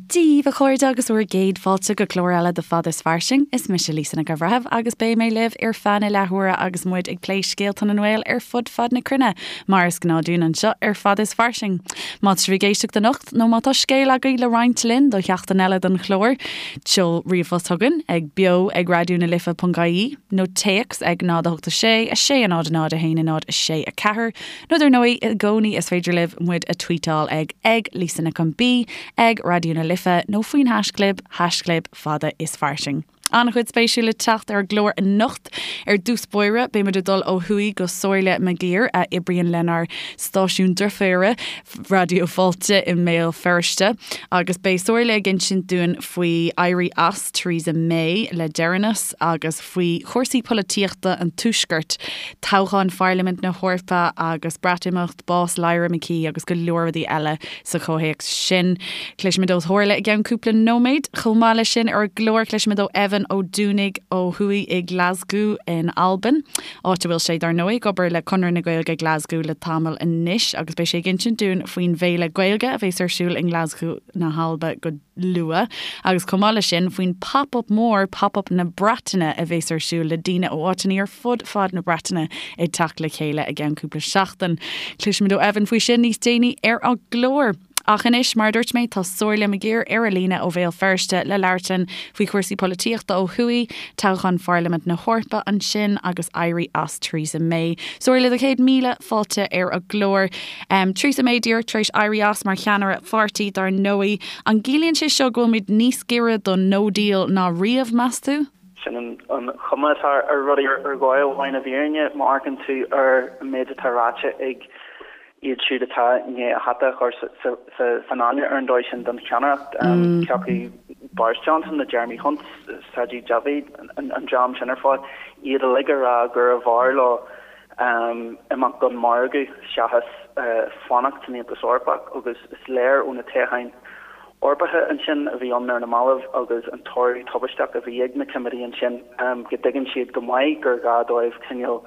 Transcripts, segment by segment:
Dia daoibh a chairde agus bhur gcéad fáilte go clár eile de Fada is Fairsing. Is mise Lisa Nic an Bhreithimh agus beidh mé libh ar feadh na leathuaire agus muid ag plé scéalta na nGael ar fud fad na cruinne, mar is gnáth dúinn anseo ar Fada is Fairsing. Má tá sibh ag éisteacht anocht nó má tá scéal agaibh le roinnt linn do sheachtain eile den chlár, seol ríomhphost chugainn ag beo ag raidió na life ponc ie nó téacs ag 0 8 6 6 0 0 1 0 6 4 Nó dar ndóigh, i gcónaí is féidir libh muid a tweetáil ag ag Lisa Nic an B, ag Raidió na Life nó faoin haischlib, haischlib fada is fairsing. An-chuid spéisiúil le teacht ar an gclár anocht. Ar dtús báire, beidh muid ag dul ó thuaidh go Somhairle McGirr, a oibríonn lenár stáisiún deirféire, Raidió Fáilte i mBéal Feirste, agus beidh Somhairle ag insint dúinn faoi éirí as Theresa May le deireanas agus faoi chúrsaí polaitíochta an Tuaiscirt, toghchán Pharlaimint na hEorpa agus Breatimeacht, bás Lyra McKee agus go leor rudaí eile sa chomhthéacs sin. Cloisfimid ó Shomhairle i gceann cúpla nóiméad. Chomh maith leis sin ar an gclár cloisfimid ó Evan Ó Dúnaigh ó thuaidh i nGlasgow in Albain, áit a bhfuil sé, dar ndóigh, ag obair le Conradh na Gaeilge Glasgow le tamall anois agus beidh sé ag insint dúinn faoin bhféile Gaeilge a bheas ar siúl i nGlasgow na hAlba go luath, agus chomh maith leis sin, faoin Pop-Up mór, Pop-Up na Breataine, a bheas ar siúl le daoine ó áiteanna ar fud fad na Breataine ag teacht le chéile i gceann cúpla seachtain. Cloisfimid ó Evan faoi sin níos déanaí ar an gclár. Ach anois, mar a dúirt mé, tá Somhairle McGirr ar an líne ó Bhéal Feirste le labhairt linn faoi chúrsaí polaitíochta ó thuaidh, toghchán Pharlaimint na hEorpa ansin agus éirí as Theresa May. Somhairle, do chéad míle fáilte ar an gclár. Theresa May díreach tar éis éirí as mar cheannaire pháirtí, dar ndóigh. An gciallaíonn sé seo go bhfuilimid níos giorra don no deal ná riamh, meas tú? Sin an chuma atá ar rudaí ar dhóigh amháin i bhfírinne, má amharcann tú ar an méid atá ráite ag iad siúd atá i ndiaidh a hata a chur san fháinne ar an dóigh sin don cheannaireacht, cé acu Boris Johnson nó Jeremy Hunt, Sajid Javid, an dream sin ar fad, iad uilig ag rá gurbh fhearr leo imeacht gan margadh seachas fanacht san Aontas Eorpach agus is léir ó na toghcháin Eorpacha ansin a bhí ann ar na mallaibh agus an toradh tubaisteach a bhí ag na coimeádaigh ansin go dtuigeann siad go maith gur ghá dóibh cineál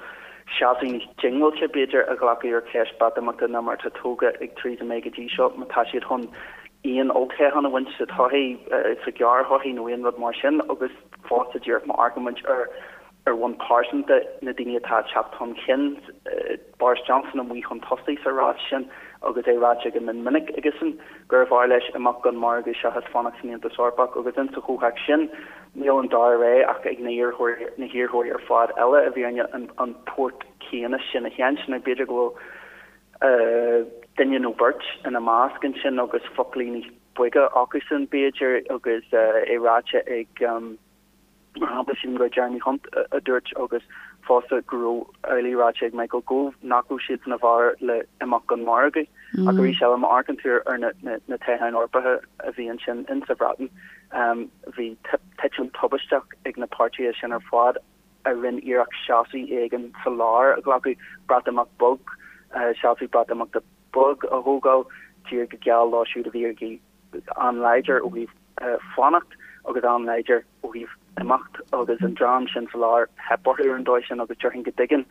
seasamh níos diongbháilte b'fhéidir a ghlacadh ar cheist Breatimeachta ná mar atá tógtha ag Theresa May go dtí seo má tá siad chun aon olltoghchán a bhaint sa todhchaí, sa ghearrthodhchaí nó aon rud mar sin agus fosta díreach má amharcann muid ar Ar bhonn pearsanta, na daoine atá ag teacht chun cinn, Boris Johnson amuigh chun tosaigh sa rás sin agus é ráite go mion minic aigesean gurbh fhearr leis imeacht gan margadh seachas fanacht san Aontas Eorpach agus insa chomhthéacs sin níl an dara rogha ach ag na hiarrthóirí na hiarrthóirí ar fad eile i bhfírinne an port céanna sin a sheinnt. Now b'fhéidir go bhfuil duine nó beirt ina measc ansin agus foclaí níos boige acusan b'fhéidir agus é ráite ag Mar shampla, sílim gur Jeremy Hunt a dúirt agus fosta go raibh amhlaidh ráite ag Michael Gove nach raibh siadsan i bhfabhar le imeacht gan margadh. Ach arís eile, má amharcann tú ar na toghcháin Eorpacha a bhí ansin in sa Bhreatain, bhí titim tubaisteach ag na páirtithe sin ar fad a rinne iarracht seasamh éigin sa lár a ghlacadh, Breatimeacht bog, seasamh Breatimeachta bog a thógáil, díreach go geal leo siúd a bhí ag an-láidir ó thaobh fanacht agus an-láidir ó thaobh imeacht agus an dream sin sa lár, theip orthu ar an dóigh sin agus déarfainn go dtuigeann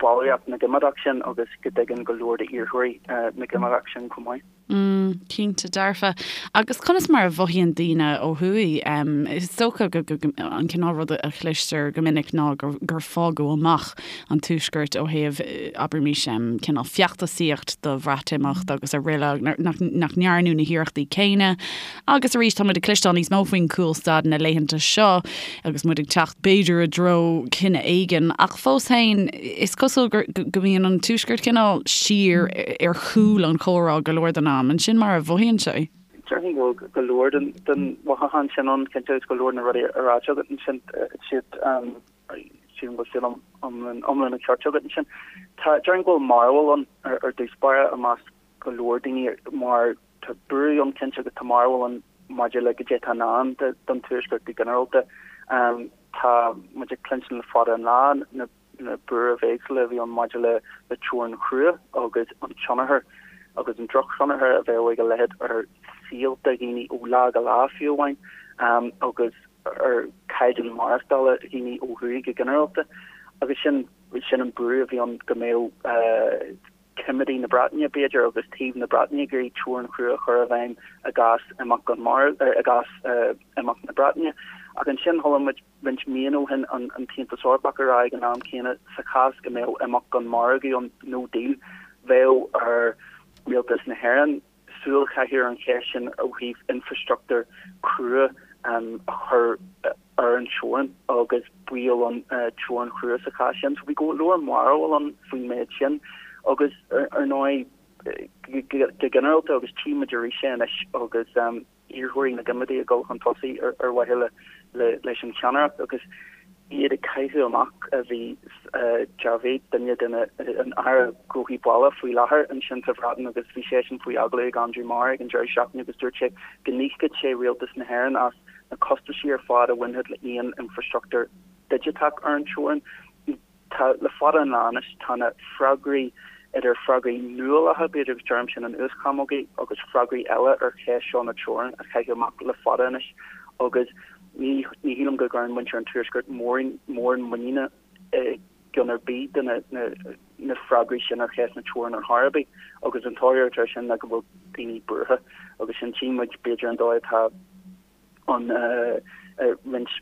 ballraíocht na gCoimeádach sin agus go dtuigeann go leor d'iarrthóirí na gCoimeádach sin chomh maith. Mm, cinnte dearfa. Agus conas mar a mhothaíonn daoine ó thuaidh? Is dócha go an cineál rud a chloistear go minic ná gur fágadh amach an Tuaisceart ó thaobh, abraimis, cineál feachtasaíocht do Bhreatimeacht agus araile, nach ndearnadh na hiarrachtaí céanna. Agus arís, tá muid ag cloisteáil níos mó faoin gcúlstad na laethanta seo agus muid ag teacht, b'fhéidir, i dtreo cinneadh éigin. Ach fós féin, is cosúil go mbíonn an Tuaisceart cineál siar ar chúl an chomhrá go leor den am. An sin mar a mhothaíonn sé? Déarfainn go bhfuil go leor den mhothúchán sin ann, cinnte, agus go leor de na rudaí a ráite agat ansin, siad. Sílim go bhfuil siad iomlán an ceart agat ansin. Tá, déarfainn go bhfuil mearbhall ann ar dtús báire i measc go leor daoine mar tá buaireamh ann cinnte agus tá mearbhall ann maidir le goidé atá i ndán don Tuaisceart go ginearálta. Tá muid ag cluinstin le fada an lá na na buairimh éagsúla a bhí ann maidir le le teorainn chrua agus an tionchar agus an drochthionchar a bheadh ag a leithéid ar saolta dhaoine ó lá go lá fiú amháin agus ar chaighdeán maireachtála dhaoine ó thuaidh go ginearálta agus sin sin an buaireamh a bhí ann go mbeadh. Coimeádaigh na Breataine, b'fhéidir, agus taobh na Breataine ag iarraidh teorainn chrua a chur i bhfeidhm i gcás imeacht gan mhargadh, i gcás imeacht na Breataine. Ach ansin chuala muid roinnt míonna ó shin an tAontas Eorpach ag rá ag an am céanna sa chás go mbeadh imeacht gan margadh ann, no deal, bheadh ar Rialtas na hÉireann súil a chaitheamh ar an cheist sin ó thaobh infreastruchtúr crua a chur ar an teorainn agus baol ann teorainn chrua sa chás sin. So bhí go leor mearbhall ann faoin méid sin agus ar ndóigh go ginearálta agus tchí muid arís é anois agus iarrthóirí na gCoimeádaigh ag dul chun tosaigh ar mhaithe leis an cheannaireacht agus iad ag caitheamh amach a bhí Javid, duine de na an Aire Gnóthaí Baile faoi láthair ansin sa Bhreatain agus bhí seisean faoi agallamh ag Andrew Marr ag an deireadh seachtaine agus dúirt sé go n-íocfadh sé Rialtas na hÉireann as na costaisí ar fad a bhainfeadh le aon infreastruchtúr digiteach ar an teorainn. Tá, le fada an lá anois, tá na freagraí, idir freagraí nuálacha, b'fhéidir, agus deirim sin in uaschamógaí, agus freagraí eile ar cheist seo na teorann á chaitheamh amach le fada anois agus ní ní shílim go gcuireann muintir an Tuaiscirt mórán mórán muiníne i gceann ar bith de na na na freagraí sin ar cheist na teorann ar chor ar bith agus an toradh atá air sin ná go bhfuil daoine buartha agus sin tchí muid b'fhéidir an dóigh atá an roinnt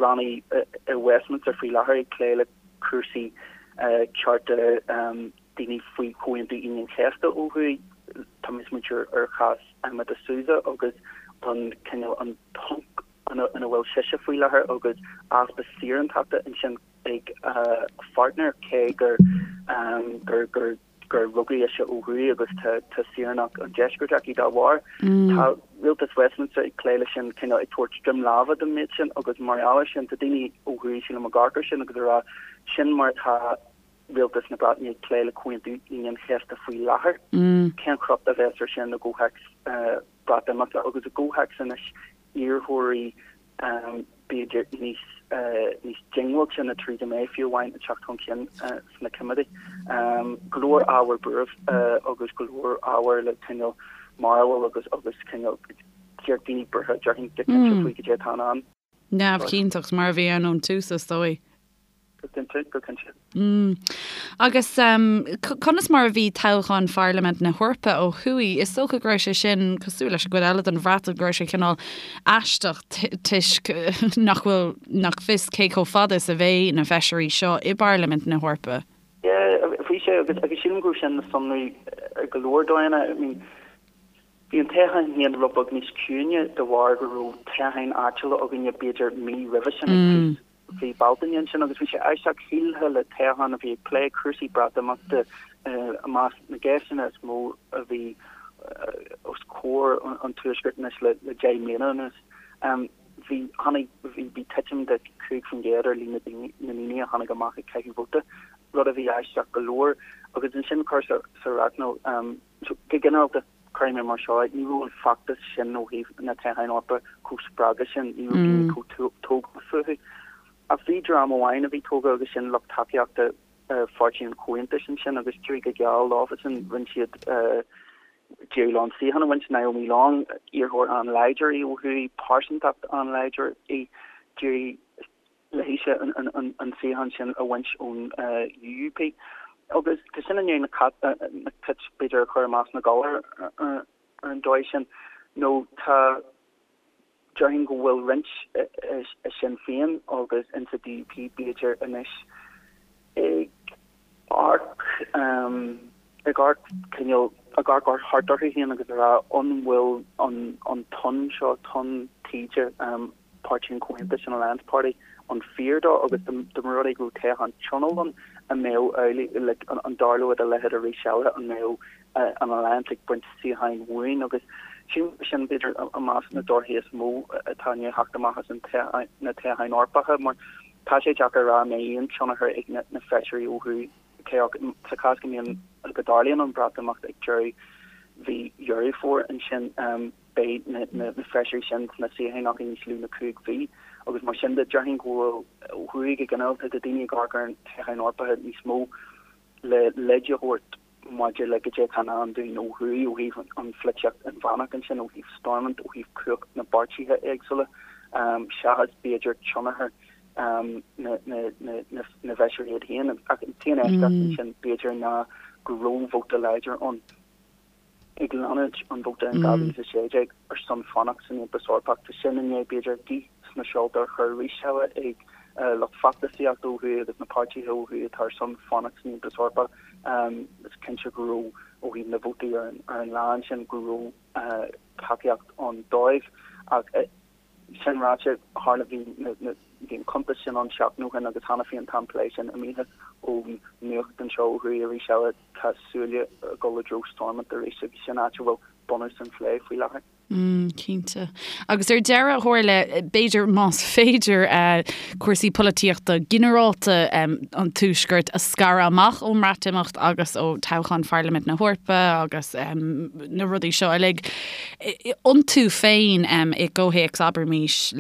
rannaí i Westminster faoi láthair ag plé le cúrsaí cearta daoine faoi Chomhaontú Aoine an Chéasta ó thuaidh. Tá mé ag smaointiú ar chás Emma DeSouza agus an cineál an ponc ina bhfuil sise faoi láthair agus easpa saorántachta ansin ag a pháirtnéir cé gur gur gur gur rugadh ise ó thuaidh agus tá tá saoránacht an deiscirt aici dá bharr. Tá rialtas Westminster ag plé leis sin cineál ag tabhairt droim láimhe don méid sin agus mar gheall air sin tá daoine ó thuaidh sílim ag amharc air sin agus ag rá sin mar atá rialtas na Breataine ag plé le Comhaontú Aoine an Chéasta faoi láthair. Cén crot a bheas ar sin i gcomhthéacs Breatimeachta agus i gcomhthéacs anois iarrthóirí b'fhéidir níos níos diongbháilte ná Theresa May fiú amháin ag teacht chun cinn sna Coimeádaigh. Go leor ábhar buairimh agus go leor ábhar le cineál mearbhall agus agus cineál daoine buartha déarfainn go cinnte faoi goidé atá i ndán. Neamhchinnteacht mar a bhí ann ón tús is dóigh. Go cinnte, go cinnte. Agus conas mar a bhí toghchán Pharlaimint na hEorpa ó thuaidh? Is dócha go raibh sé sin cosúil leis an gcuid eile den Bhreatain, go raibh sé cineál aisteach toisc nach bhfuil, nach fios cé chomh fada is a bheidh na feisirí seo i bParlaimint na hEorpa. Yeah, bhí sé agus agus sílim go raibh sin le sonrú ar go leor dóigheanna. I mean, bhí an toghchán féin rud beag níos ciúine de bharr go raibh toghcháin áitiúla againne b'fhéidir mí roimhe sin ag tús mhí Bealtaine ansin agus bhí sé aisteach, shílfeá le toghchán a bhí ag plé cúrsaí Breatimeachta i measc na gceisteanna is mó a bhí os comhair an Tuaiscirt anois le 10 mbliana anuas. Bhí, tháinig, bhí, bhí titim de 5% ar líon na ndaoine a tháinig amach ag caitheamh vóta, rud a bhí aisteach go leor. Agus ansin cur sa racnal, go ginearálta, Cuirfidh mé mar seo é, ní raibh an feachtas sin ó thaobh na toghcháin Eorpacha chomh spreagtha sin, ní raibh daoine chomh tógtha fúthu. Ach bhí dream amháin a bhí tógtha agus sin lucht tacaíochta Pháirtí an Chomhaontais ansin agus d'éirigh go geal leofasan, rinne siad, d'éirigh leo an suíochán a bhaint, Naomi Long, iarrthóir an-láidir í ó thuaidh, pearsantacht an-láidir í, d'éirigh léise an suíochán sin a bhaint ón UUP. Agus tá sin i ndiaidh na cait, b'fhéidir, a chur i measc na gcoileach ar an dóigh sin, nó tá, déarfainn go bhfuil roinnt i Sinn Féin agus insa DUP, b'fhéidir, anois ag amharc, ag amharc cineál, ag amharc thart orthu féin agus ag rá an bhfuil an tonn seo, tonn taoide, Páirtí an Chomhaontais, an Alliance Party, an fíor dó agus dá mba rud é go raibh toghchán tionóil ann, an mbeadh amhlaidh, like, an dtarlódh a leithéid arís eile, an mbeadh an Alliance ag baint suíocháin uainn agus sílim gur sin b'fhéidir i measc na dtorthaí is mó atá i ndiaidh theacht amach as an na toghcháin Eorpacha mar tá sé deacair a rá an mbeidh aon tionchar ag na feisirí ó thuaidh cé acu sa chás go mbíonn go dtarlaíonn an Breatimeacht ag deireadh mhí Dheireadh Fómhair ansin. Beidh na feisirí sin sna suíocháin acu níos lú na 5 mhí agus mar sin de, déarfainn go bhfuil ó thuaidh go ginearálta tá daoine ag amharc ar na toghcháin Eorpacha níos mó le leid a thabhairt maidir le goidé atá i ndán dúinn ó thuaidh ó thaobh an pholaitíocht inmheánach ansin, ó thaobh Stormont, ó thaobh cumhacht na bpáirtithe éagsúla, seachas b'fhéidir tionchar na bhfeisirí iad féin. Ach an t-aon eisceacht ansin b'fhéidir ná. go raibh vóta láidir ann ag leanúint an vóta in 2016 ar son fanacht san Aontas Eorpach. Tá sin i ndiaidh, b'fhéidir, gaoth sna seolta a chur arís eile ag lucht feachtasaíochta ó thuaidh agus na páirtithe ó thuaidh atá ar son fanacht san Aontas Eorpach. Is cinnte go raibh, ó thaobh na vótaí ar an lá ansin, go raibh tacaíocht ann dóibh. Ach sin ráite, tharla, bhí bhí an cuntas sin ann seachtain ó shin agus cheana féin tá an plé sin imithe ón nuacht anseo ó thuaidh arís eile. Tá súile ag dul i dtreo Stormont arís agus sin áit a bhfuil bunús an phlé faoi láthair. Mm, cinnte. Agus ar deireadh, a Shomhairle, b'fhéidir, más féidir, cúrsaí polaitíochta ginearálta an Tuaiscirt a scaradh amach ón mBreatimeacht agus ó toghchán Pharlaimint na hEorpa agus na rudaí seo uilig, iontu féin i gcomhthéacs, abraimis,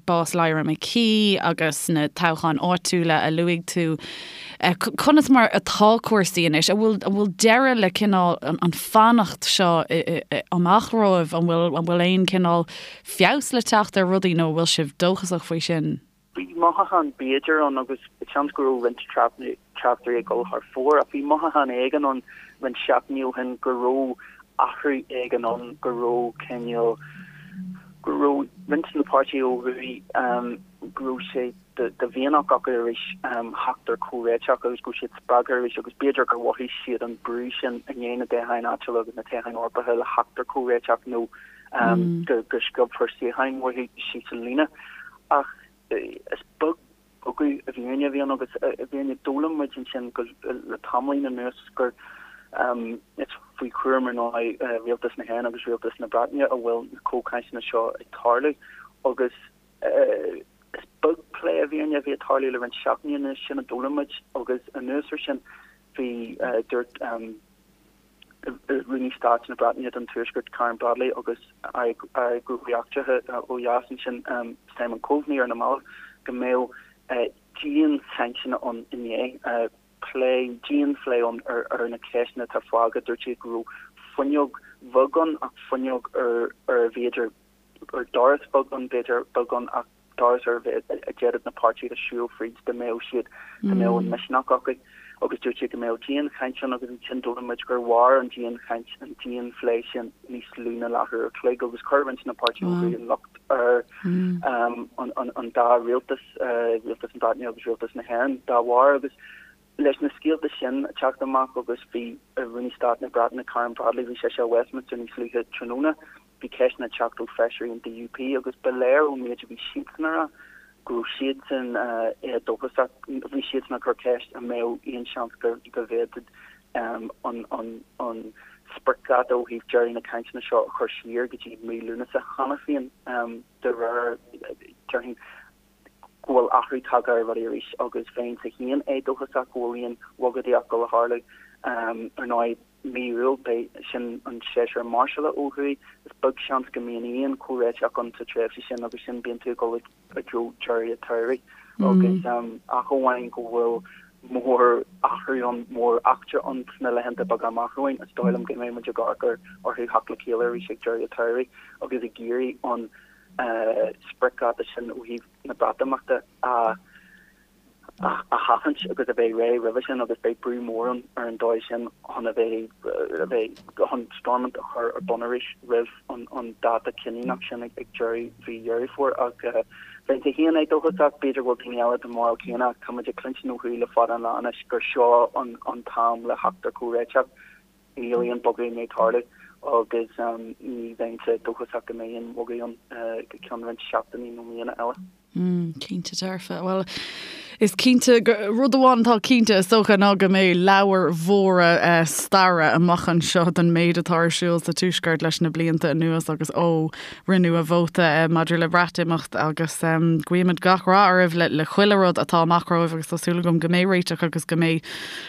bás Lyra McKee agus na toghcháin áitiúla a luaigh tú, Conas mar atá cúrsaí anois? An bhfuil, an bhfuil deireadh le cineál an fanacht seo amach romhaibh? An bhfuil, an bhfuil aon cineál feabhas le teacht ar rudaí nó an bhfuil sibh dóchasach faoi sin? Bhí mothúchán b'fhéidir ann agus seans go raibh roinnt tráchtairí ag dul thar fóir ach bhí mothúchán éigin ann roinnt seachtainí ó shin go raibh athrú éigin ann, go raibh cineál, go raibh roinnt de na páirtithe ó thuaidh, go raibh sé de mhianach acu arís theacht ar chomhréiteach agus go raibh siad spreagtha arís agus b'fhéidir gur mhothaigh siad an brú sin i ndiaidh na dtoghcháin áitiúla agus na toghcháin Eorpacha le theacht ar chomhréiteach nó go sciobfar suíocháin uathu síos an líne. Ach is beag bogadh i bhfírinne a bhí ann agus i bhfírinne d'fhoghlaim muid ansin go le tamaillín anuas gur is faoi chúram ar ndóigh Rialtas na hÉireann agus Rialtas na Breataine a bhfuil na comhchainteanna seo ag tarlú agus Is beag plé i bhfírinne a bhí ag tarlú le roinnt seachtainí anuas, sin a d'fhoghlaim muid, agus anuas ar sin bhí, dúirt Rúnaí Stáit na Breataine don Tuaisceart, Karen Bradley, agus Aire Gnóthaí Eachtracha ó dheas ansin, Simon Coveney, ar na mallaibh go mbeadh dianchainteanna ann inné, plé, dianphlé ann ar na ceisteanna atá fágtha. Dúirt siad go raibh fuinneog bheag ann ach fuinneog ar a bhféidir ar doras beag ann, b'fhéidir, beag ann ach doras ar a d'fhéadfadh na páirtithe siúl fríd dá mbeadh siad, dá mbeadh an misneach acu. Agus dúirt siad go mbeadh dianchaint ann agus ansin d'fhoghlaim muid gur mhair an dianchaint, an dianphlé sin níos lú ná leathuair a chloig agus chuir roinnt de na páirtithe ó thuaidh an locht ar an dá rialtas, rialtas na Breataine agus rialtas na hÉireann dá bharr agus Leis na scéalta sin ag teacht amach agus bhí Rúnaí Stáit na Breataine Karen Bradley, bhí sise i Westminster níos luaithe tráthnóna, bhí ceisteanna ag teacht ó feisirí an DUP agus ba léir ón méid a bhí siadsan a rá go raibh siadsan éadóchasach, bhí siadsan ag cur ceist an mbeadh aon seans go bhféadfadh an spriocdháta ó thaobh deireadh na cainteanna seo a chur siar go dtí mí Lúnasa cheana féin de réir, déarfainn. go bhfuil athrú tagtha ar rudaí arís agus bheinnse féin éadóchasach go bhfuil aon bhogadaíocht ag dul a tharlú. Ar ndóigh, mí Iúil, beidh sin an séasúr máirseála ó thuaidh. Is beag seans go mbíonn aon chomhréiteach ann sa tréimhse sin agus sin bíonn tú ag dul i dtreo deireadh an tsamhraidh agus ach amháin go bhfuil mór-athrú ann, mór-eachtra ann sna laethanta beaga amach romhainn, is dóigh liom go mbeidh muid ag amharc orthu theacht le chéile arís ag deireadh an tsamhraidh agus ag iarraidh an spriocdháta sin ó thaobh na Breatimeachta a sheachaint agus a bheith réidh roimhe sin agus beidh brú mór ann ar an dóigh sin chun a bheith a bheith chun Stormont a chur ar bun arís roimh an dáta cinniúnach sin ag deireadh mhí Dheireadh Fómhair. Ach bheinnse féin éadóchasach, b'fhéidir go bhfuil daoine eile den bharúil chéanna ach tá muid ag cluinstin ó thuaidh le fada an lá anois gur seo an t-am le theacht ar chomhréiteach. Níl aon bogadh i ndiaidh tarlú agus ní bheinnse dóchasach go mbeidh aon bhogadh ann go ceann roinnt seachtainí nó míonna eile. Mm, cinnte dearfa. Bhuel, is cinnte, rud amháin atá cinnte is dócha ná go mbeidh leabhair mhóra staire amach anseo den méid atá ar siúl sa Tuaisceart leis na blianta anuas agus ó rinneadh an vóta maidir le Breatimeacht agus guímid gach rath oraibh le chuile rud atá amach romhaibh agus tá súil agam go mbeidh réiteach agus go mbeidh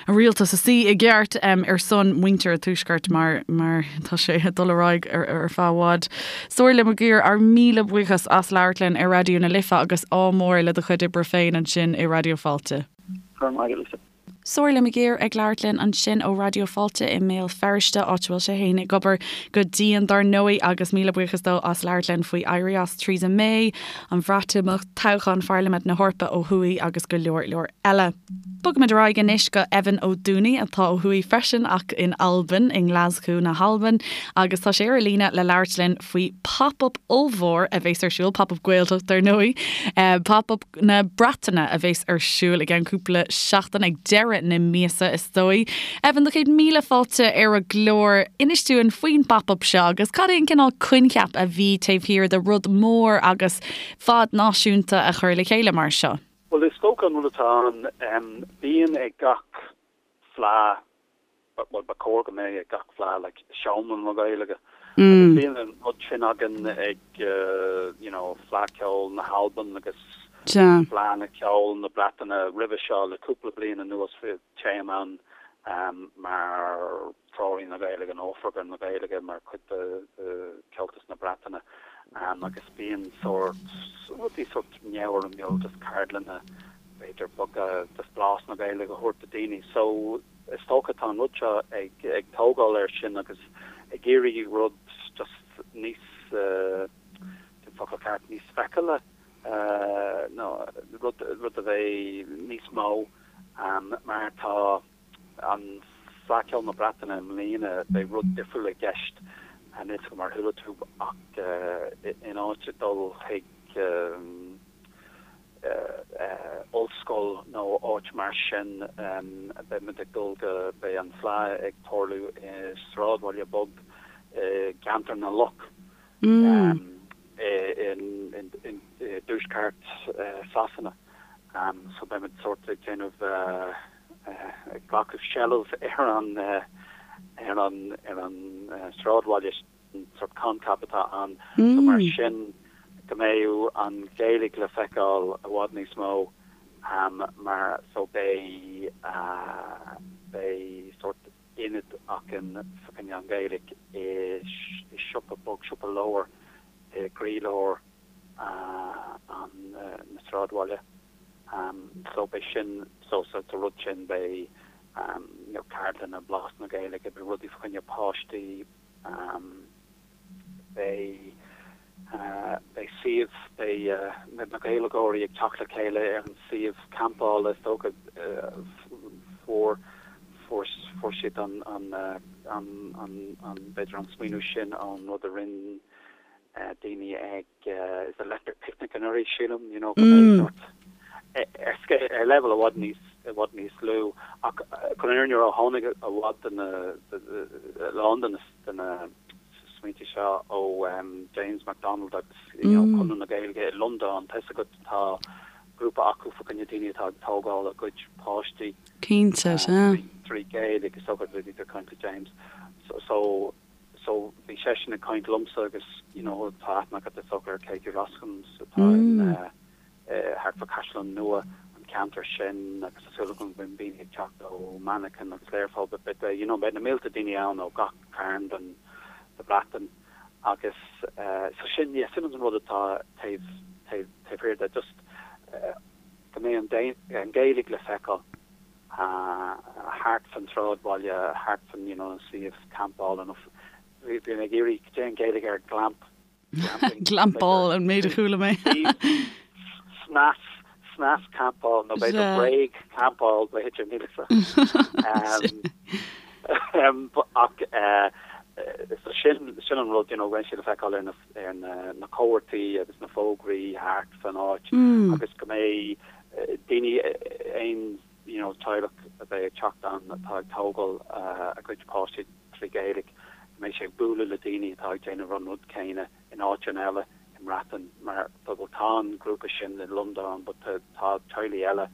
an rialtas ina suí i gceart ar son muintir an Tuaiscirt mar mar tá sé ag dul ar aghaidh ar feadh i bhfad. Somhairle McGirr, ár míle buíochas as labhairt linn ar Raidió na Life agus ádh mór le do chuid oibre féin ansin i Raidió Fáilte. Go raibh maith agat, Lisa. Somhairle McGirr ag labhairt linn ansin ó Raidió Fáilte i mBéal Feirste, áit a bhfuil sé fhéin ag obair go dian dar ndóigh, agus míle buíochas dó as labhairt linn faoi éirí as Theresa May, an Bhreatimeacht, toghchán Pharlaimint na hEorpa ó thuaidh agus go leor leor eile. Bogaimid ar aghaidh anois go Evan Ó Dúnaí atá ó thuaidh freisin ach in Albain, i nGlaschú na hAlban, agus tá sé ar an líne le labhairt linn faoi pop-up ollmhór a bheas ar siúl, pop-up Gaeltacht dar ndóigh, pop-up na Breataine a bheas ar siúl i gceann cúpla seachtain, ag deireadh na míosa is dóigh. Evan, do chéad míle fáilte ar an gclár. Inis dúinn faoin bpop-up seo agus cad é an cineál coincheap a bhí taobh thiar de rud mór agus fad náisiúnta a chur le chéile mar seo? Bhuel, is dócha an rud atá ann, bíonn ag gach fleá bhuel, ba chóir go mbeadh ag gach fleá, like, seomra na Gaeilge. Agus bíonn an rud sin againn ag, you know, Fleadh Cheoil na hAlban agus Fleadh Cheoil na Breataine roimhe seo le cúpla bliain anuas téim ann mar Treoraí na Gaeilge nó Oifigeach na Gaeilge mar chuid de Chomhaltas na Breataine agus bíonn sórt, rudaí sórt neamhfhoirmiúil, just ceardlanna b'fhéidir beaga, just blas na Gaeilge a thabhairt do daoine. So is dócha tá an rud seo ag ag tógáil air sin agus ag iarraidh rud just níos, cén focal ceart, níos feiceála nó rud rud a bheidh níos mó mar tá an Fleadh Cheoil na Breataine i mbliana beidh rud difriúil i gceist, níl 's agam ar chuala tú ach in áit dul chuig ollscoil nó áit mar sin, beidh muid ag dul go, beidh an Fleadh ag tarlú i sráidbhaile beag i gCeantar na Loch i dtuaisceart Sasana. So beidh muid sórt ag déanamh, ag glacadh seilbh ar an ar an ar an sráidbhaile sin. an sórt coincheap atá ann. So mar sin go mbeidh an Ghaeilge le feiceáil i bhfad níos mó mar so beidh beidh sórt ionad againn fá choinne an Ghaeilge i siopa beag, siopa leabhar i gcroílár an na sráidbhaile. So beidh sin so sa rud sin beidh you know ceardlanna blas na Gaeilge, beidh rudaí fá choinne páistí, Beidh beidh suíomh, beidh na Gaeilgeoirí ag teacht le chéile ar an suíomh campála is dócha. Fuair fuair fuair siad an an an an b'fhéidir an smaoineamh sin ón rud a rinne daoine ag is Electric Picnic anuraidh, sílim, you know, go mbeidh sórt ar scéal, ar leibhéal i bhfad níos, i bhfad níos lú. Ach chun an fhírinne a rá, tháinig i bhfad de na, a lán de na, de na smaointe seo ó James McDonald agus, you know, Conradh na Gaeilge i Londain. Tá 'fhios agat, tá grúpa acu fá choinne daoine atá ag tógáil a gcuid páistí. Cinnte, sea. Trí Ghaeilge, is dócha, bhí ag caint le James. So, So bhí seisean ag caint liomsa agus you know tá aithne agat is dócha ar Katie Roskams atá in eh thart fá Caisleán Nua an ceantar sin agus tá súil agam go mbeidh daoine ag teacht ó Manchain agus Learpholl but beidh you know beidh na mílte daoine ann ó gach cearn den de Bhreatain agus eh so sin yeah sin an rud atá taobh taobh taobh thiar de just eh go mbeidh an an Ghaeilge le feiceáil. thart fan tsráidbhaile, thart fan you know an suíomh campála nó bhí mé ag iarraidh cad é an Ghaeilge ar glamp, glamping? Glampáil an méid a chuala mé. Snas, snas campáil nó b'fhéidir bréag campáil b'fhéidir níl 'fhios a'm. Ach so sin sin an rud you know beidh sé le feiceáil ar na ar na na comharthaí agus na fógraí thart fan áit agus go mbeidh daoine, aon you know teaghlach a bheidh ag teacht ann atá ag tógáil a gcuid páistí trí Ghaeilge, go mbeidh sé ag bualadh le daoine atá ag déanamh an rud céanna in áiteanna eile i mBreatain mar bhuel tá an grúpa sin i Londain but tá teaghlaigh eile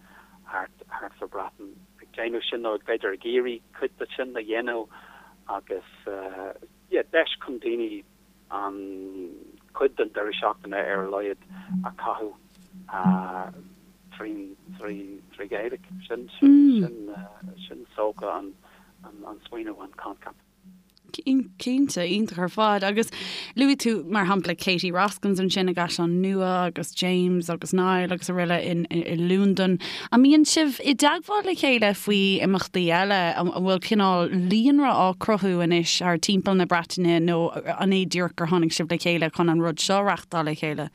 thart thart sa Bhreatain ag déanamh sin nó b'fhéidir ag iarraidh cuid de sin a dhéanamh agus yeah deis chun daoine an cuid den deireadh seachtaine ar a laghad a chaitheamh trí Ghaeilge. Sin sin sin is dócha an an smaoineamh, an coincheap. Cinnte, iontach ar fad. Agus luaigh tú, mar shampla, Katie Roskams ansin i gCaisleán Nua agus James agus Niall agus araile in i Londain. An mbíonn sibh i dteagmháil le chéile faoi imeachtaí eile? An bhfuil cineál líonra á cruthú anois thar timpeall na Breataine nó an é díreach gur tháinig sibh le chéile chun an rud seo a reachtáil le chéile?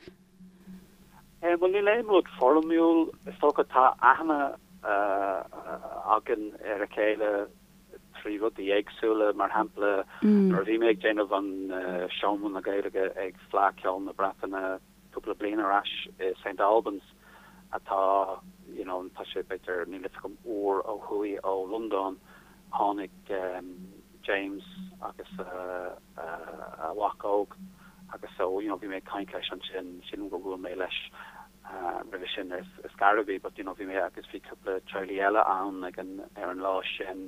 Bhuel, níl aon rud foirmiúil. Is dócha tá aithne againn ar a chéile trí rudaí éagsúla. Mar shampla, nuair a bhí mé ag déanamh an Seomra na Gaeilge ag Fleadh Cheoil na Breataine cúpla bliain ar ais i St Albans, atá, you know, tá sé b'fhéidir, níl fhios agam, uair ó thuaidh ó Londain, tháinig James agus a mhac óg agus so, you know, bhí mé ag caint leis ansin, sílim gur bhuail mé leis roimhe sin ar scor ar bith but you know bhí mé agus bhí cúpla teaghlaigh eile ann ag an ar an lá sin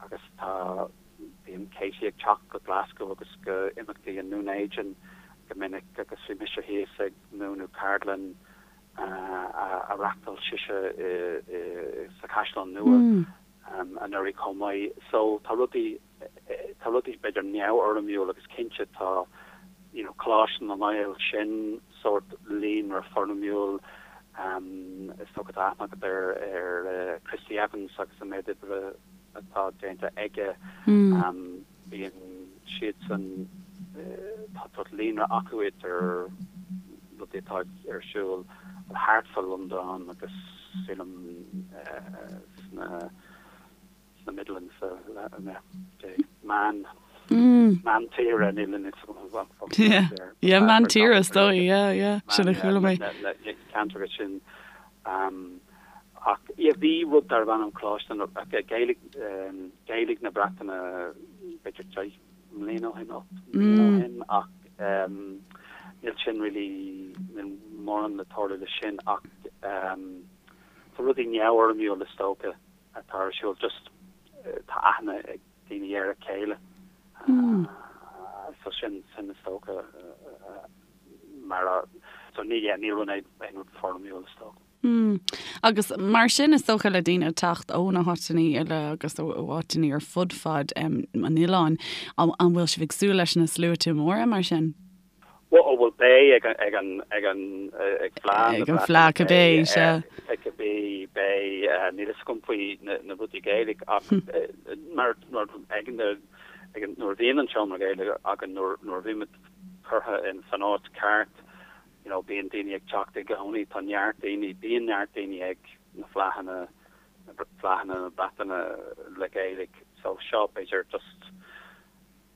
agus tá bíonn Katie ag teacht go Glasgow agus go imeachtaí i nDún Éideann go minic agus bhí mise thíos ag múineadh ceardlann a reachtáil sise i i sa Chaisleán Nua anuraidh chomh maith so tá rudaí tá rudaí b'fhéidir neamhfhoirmiúil agus cinnte tá you know Coláiste na nGael sin sórt líonra foirmiúil is dócha tá aithne agat ar ar Christy Evans agus an méid oibre atá déanta aige bíonn siadsan tá sórt líonra acu idir rudaí atá ar siúl thart fá Londain agus sílim sna sna Midlands, meán, meán tíre, níl a fhios agam. Yeah, yeah, meán tíre is dóigh, yeah, yeah, sin a chuala mé. Na ceantracha sin. Ach, yeah, bhí rud darbh ainm Coláiste na, Gaeilge, Gaeilge na Breataine, b'fhéidir 10 mbliana ó shin, 8 mbliana ó shin, ach níl sin really, níl mórán le tarlú le sin, ach tá rudaí neamhfhoirmiúil is dócha. atá ar siúl just tá aithne ag daoine ar a chéile so sin sin is dócha mar a so ní yeah ní rud aon rud foirmiúil is dócha. Mm. Agus mar sin is dócha le daoine teacht ó na háiteanna eile agus ó áiteanna ar fud fad um, an oileáin, an bhfuil sibh ag súil leis na sluaite móra mar sin? Bhuel, bhuel beidh ag an, ag an, ag an, ag Fleadh na Ag an Fleadh cibé, sea. Ag cibé, beidh, níl fhios agam faoi na, na rudaí Gaeilge ach mar, mar ag an, ag an, nuair a bhíonn an seomra Gaeilge againn, nuair, nuair a bhímid curtha in san áit ceart, you know, bíonn daoine ag teacht i gcónaí, tá neart daoine, bíonn neart daoine ag na Fleadhanna, na Fleadhanna na Breataine le Gaeilge, so seo b'fhéidir just,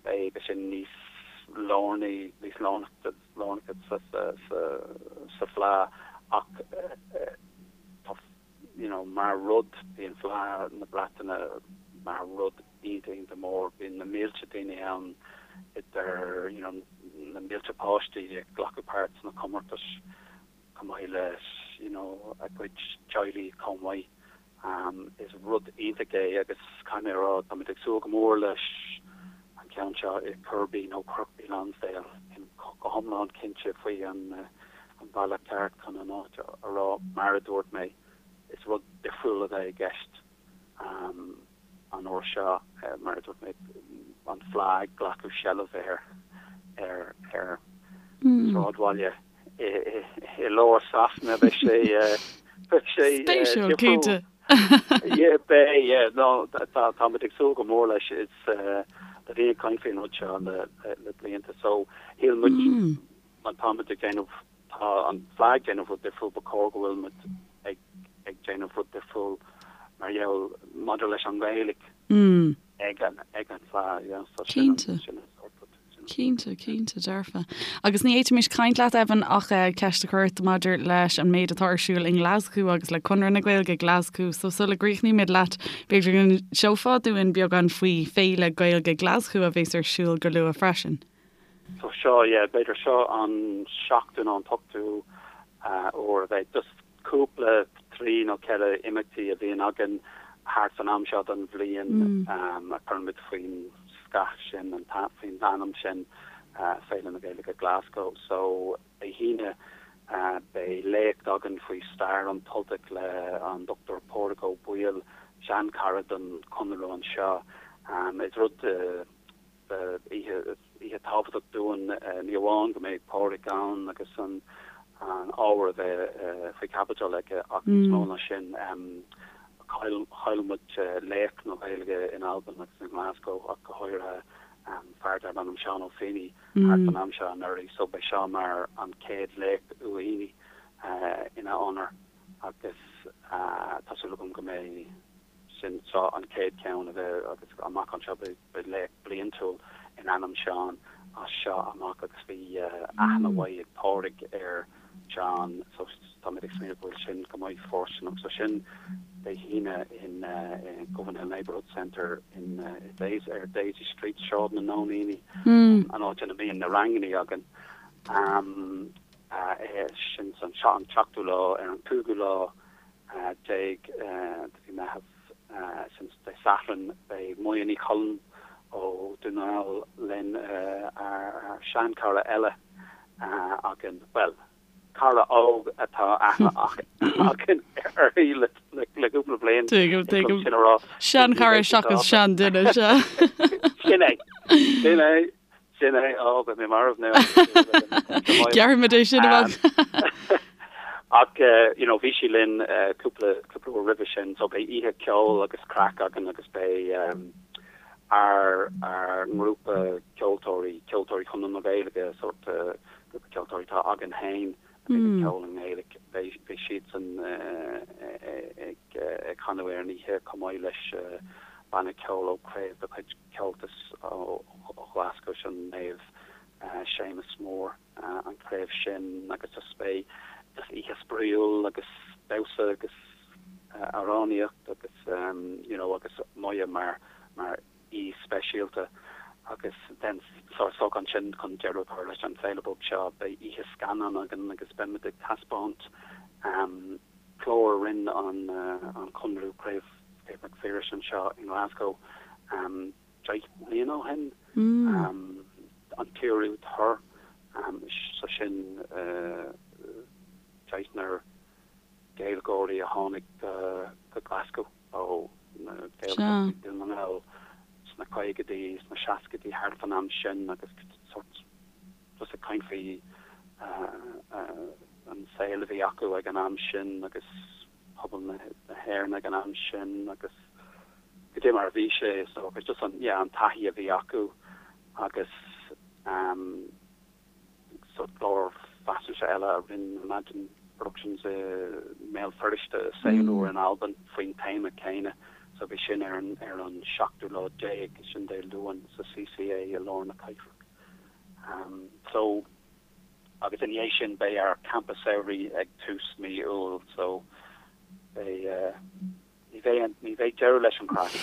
Beidh sé níos lárnaí, níos lárnacha sa Fleadh ach tá, you know, mar rud, bíonn Fleadh na Breataine mar rud iontach, iontach mór. Bíonn na mílte daoine ann idir, you know, na mílte páistí ag glacadh páirt sna comórtais chomh maith le, you know, a gcuid teaghlaigh chomh maith. Is rud iontach é agus caithfidh mé a rá, táimid ag súil go mór leis an ceann seo i Kirkby nó Kirkby Lonsdale. Nílim go hiomlán cinnte faoi an bealach ceart chun an áit a rá. Mar a dúirt mé, is rud difriúil a bheidh i gceist an uair seo, mar a dúirt mé, an Fleadh ag glacadh seilbh ar ar ar sráidbhaile. i lár Sasana beidh sé beidh sé Spéisiúil, cinnte. Yeah, beidh, yeah, no, tá táimid ag súil go mór leis is tá daoine ag caint faoin rud seo le le blianta so shíl muid má táimid ag déanamh tá an Fleadh ag déanamh rud difriúil ba chóir go bhfuil muid ag ag déanamh rud difriúil mar gheall maidir leis an Ghaeilge ag an ag an Fleadh, yeah, so sin an sin an sórt rud. Cinnte, cinnte, dearfa. Agus ní fhéadfaimis caint leat, Evan, ach ceist a chur ort maidir leis an méid atá ar siúl i nGlaschú agus le Conradh na Gaeilge Glaschú. So sula gcríochnaímid leat, b'fhéidir go n-inseofá dúinn beagán faoi Féile Gaeilge Glaschú a bheas ar siúl go luath freisin. So seo, yeah, b'fhéidir seo an seachtú nó an t-ochtú uair a bheidh. Just cúpla, trí nó ceithre imeachtaí a bhíonn againn thart san am seo den bhliain a chuirimid faoin scath sin, faoin ainm sin, Féile na Gaeilge Glasgow. So, Dé hAoine beidh léacht againn faoi stair an tUltaigh le an Dr Pádraig Ó Baoill, seanchara don Chonradh anseo. Is rud. oíche oíche tábhachtach dúinn, ní amháin go mbeidh Pádraig ann agus an ábhar a bheith faoi chaibidil aige ach níos mó ná sin, chaill chaill muid laoch na Gaeilge in Albain agus i nGlasgow ach go háirithe, fear darb ainm Seán Ó Fínneadha thart fan am seo anuraidh so beidh seo mar an chéad léacht Uí Fhínneadha ina onóir agus tá súil agam go mbeidh sin seo an chéad cheann a bheidh agus amach anseo beidh léacht bliantúil in ainm Seán as seo amach agus bhí aithne mhaith ag Pádraig ar Seán so táimid ag smaoineamh go bhfuil sin go maith fóirsteanach so sin Dé hAoine in Govanhill Neighbourhood Centre in Daisy ar Daisy Street, Sráid na Nóiníní, an áit ina mbíonn na rangannaí againn. Sin an seachtú lá ar an cúigiú lá de mhí Meitheamh, sin Dé Sathairn, beidh Moya Ní Choilm ó Dún na nGall linn, ár seanchara eile againn, bhuel, cara óg atá aithne againn uirthi le cúpla bliain, Tuigim, tuigim. sin a rá. Seanchara seachas seanduine, sea. Sin é, sin é. Sin é, ó, beidh mé marbh now. Gearrfaimid é sin amach. Ach, you know, bhí sí linn cúpla, cúpla uair roimhe sin, so beidh oíche ceoil agus craic againn agus beidh ár, ár ngrúpa ceoltóirí, Ceoltóirí Chonradh na Gaeilge, sórt grúpa ceoltóirí atá againn féin, a bhíonn ag ceol i nGaeilge, beidh, beidh siadsan ag, ag canadh ar an oíche chomh maith leis banna ceoil ó chraobh de chuid Comhaltas ó Ghlaschú, sin Naomh Séamus Mór an chraobh sin agus just beidh just oíche spraíúil agus damhsa agus amhránaíocht agus you know agus Moya mar mar aoi speisialta agus then so so ansin chun deireadh a chur leis an féile beag seo beidh oíche scannán againn agus beimid ag taispeáint clár a rinne an an Conradh Craobh Craobh Mhic Phiarais anseo i nGlasgow 10 mbliana ó shin, an tRú Tur, so sin deichniúr Gaeilgeoirí a tháinig go Glasgow ó na Gaeltachtaí Dún na nGall sna caogaidí, sna seascaidí, thart fan am sin agus sort just ag caint faoi an saol a bhí acu ag an am sin agus pobal na hÉireann ag an am sin agus goidé mar a bhí sé is dócha, just an, yeah, an taithí a bhí acu agus ehm so clár faisnéise eile a rinne Imagine Productions i mBéal Feirste, Saol Úr in Albain faoin téama céanna so bhí sin ar an, ar an seachtú lá déag, sin Dé Luain sa CCA i lár na cathrach. Ehm so. Agus ina dhiaidh sin beidh ár campa samhraidh ag tús mí Iúil so beidh, ní bheidh, ní bheidh deireadh leis an chraic.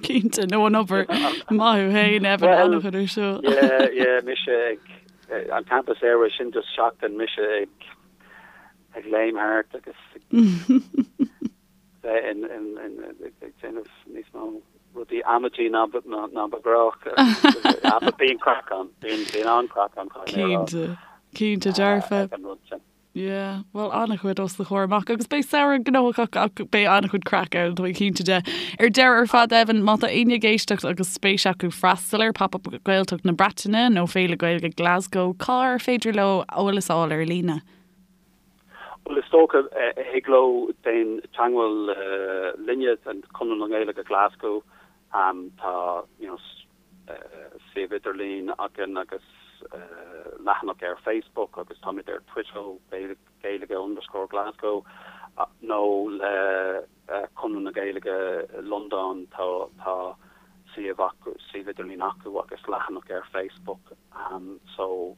Cinnte, nó an obair. Maith thú féin, Evan, an-chuid ar siúl. Yeah, yeah, mise ag, an campa samhraidh sin just seachtain mise ag, ag léim thart agus ag bheith in, in, in, ag déanamh níos mó rudaí amaidí ná ba, ná ba ghnách. But bíonn craic ann, bíonn, bíonn an-chraic ann, caithfidh mé a rá. Cinnte, cinnte dearfa. Ag an rud sin. Yeah, bhuel an-chuid os do chomhair amach agus beidh samhradh gnóthach ach beidh an-chuid craic ann, tá mé cinnte de. Ar deireadh ar fad Evan, má tá éinne ag éisteacht agus spéis acu freastal ar Pop-Up Gaeltacht na Breataine nó Féile Gaeilge Glasgow, cár féidir leo eolas a fháil ar líne? Bhuel, is dócha, thig leo déan teagmháil linne, Conradh na Gaeilge Glasgow, tá you know suíomh idirlín againn agus leathanach ar Facebook agus táimid ar Twitter, Gaeilge underscore Glasgow, nó le Conradh na Gaeilge Londain, tá tá suíomh acu, suíomh idirlín acu agus leathanach ar Facebook so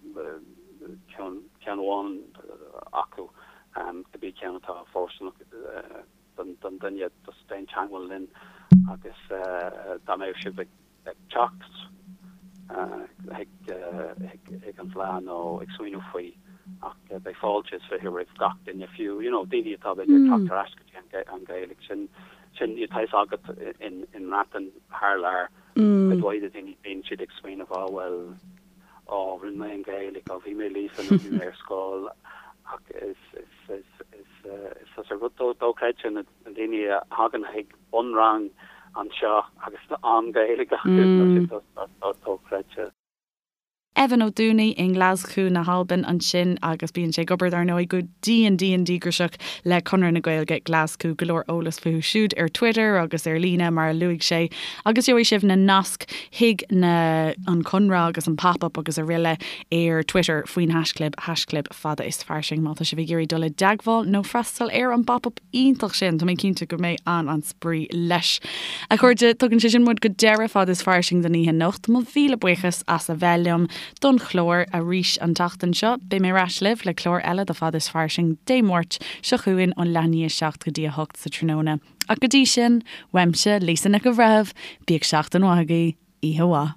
ceann ceann amháin acu cibé ceann atá fóirsteanach don don duine just déan teagmháil linn agus dá mbeadh sibh ag ag teacht chuig an bhFleadh nó ag smaoineamh faoi ach beidh fáilte is 20 roimh gach duine, fiú you know daoine atá b'fhéidir ag teacht ar ais go dtí an Ghaeilge. Sin sin tá fhios agat in in mBreatain thar lear cuid mhaith de daoine bíonn siad ag smaoineamh á bhuel á rinne mé an Ghaeilge, á bhí mé líofa nó bhí mé ar scoil ach is is is is is is rud dochreidte na daoine a thagann chuig bunrang. anseo agus an Ghaeilge acu, tá sé dochreidte. Evan Ó Dúnaigh i nGlaschú na hAlban ansin agus bíonn sé ag obair dar ndóigh go dian dian díograiseach le Conradh na Gaeilge Glaschú. Go leor eolas fúthu siúd ar Twitter agus ar líne mar a luaigh sé agus gheobhaidh sibh na naisc chuig na an Conradh agus an Pop Up agus aroile ar Twitter faoin haischlib haischlib fada is fairsing má tá sibh ag iarraidh dul i dteagmháil nó freastal ar an bPop Up iontach sin, tá mé cinnte go mbeidh an-an-spraoi leis. A chairde, tugann sé sin muid go deireadh Fada is Fairsing don oíche anocht. Mo mhíle buíochas as a bheith liom don chlár arís an tseachtain seo. Beidh mé ar ais libh le clár eile de Fada is Fairsing Dé Máirt seo chugainn ón leath i ndiaidh 7 go dtí 8 sa tráthnóna. Ach go dtí sin, uaimse, Lisa Nic an Bhreithimh, bíodh seachtain mhaith agaibh, oíche mhaith.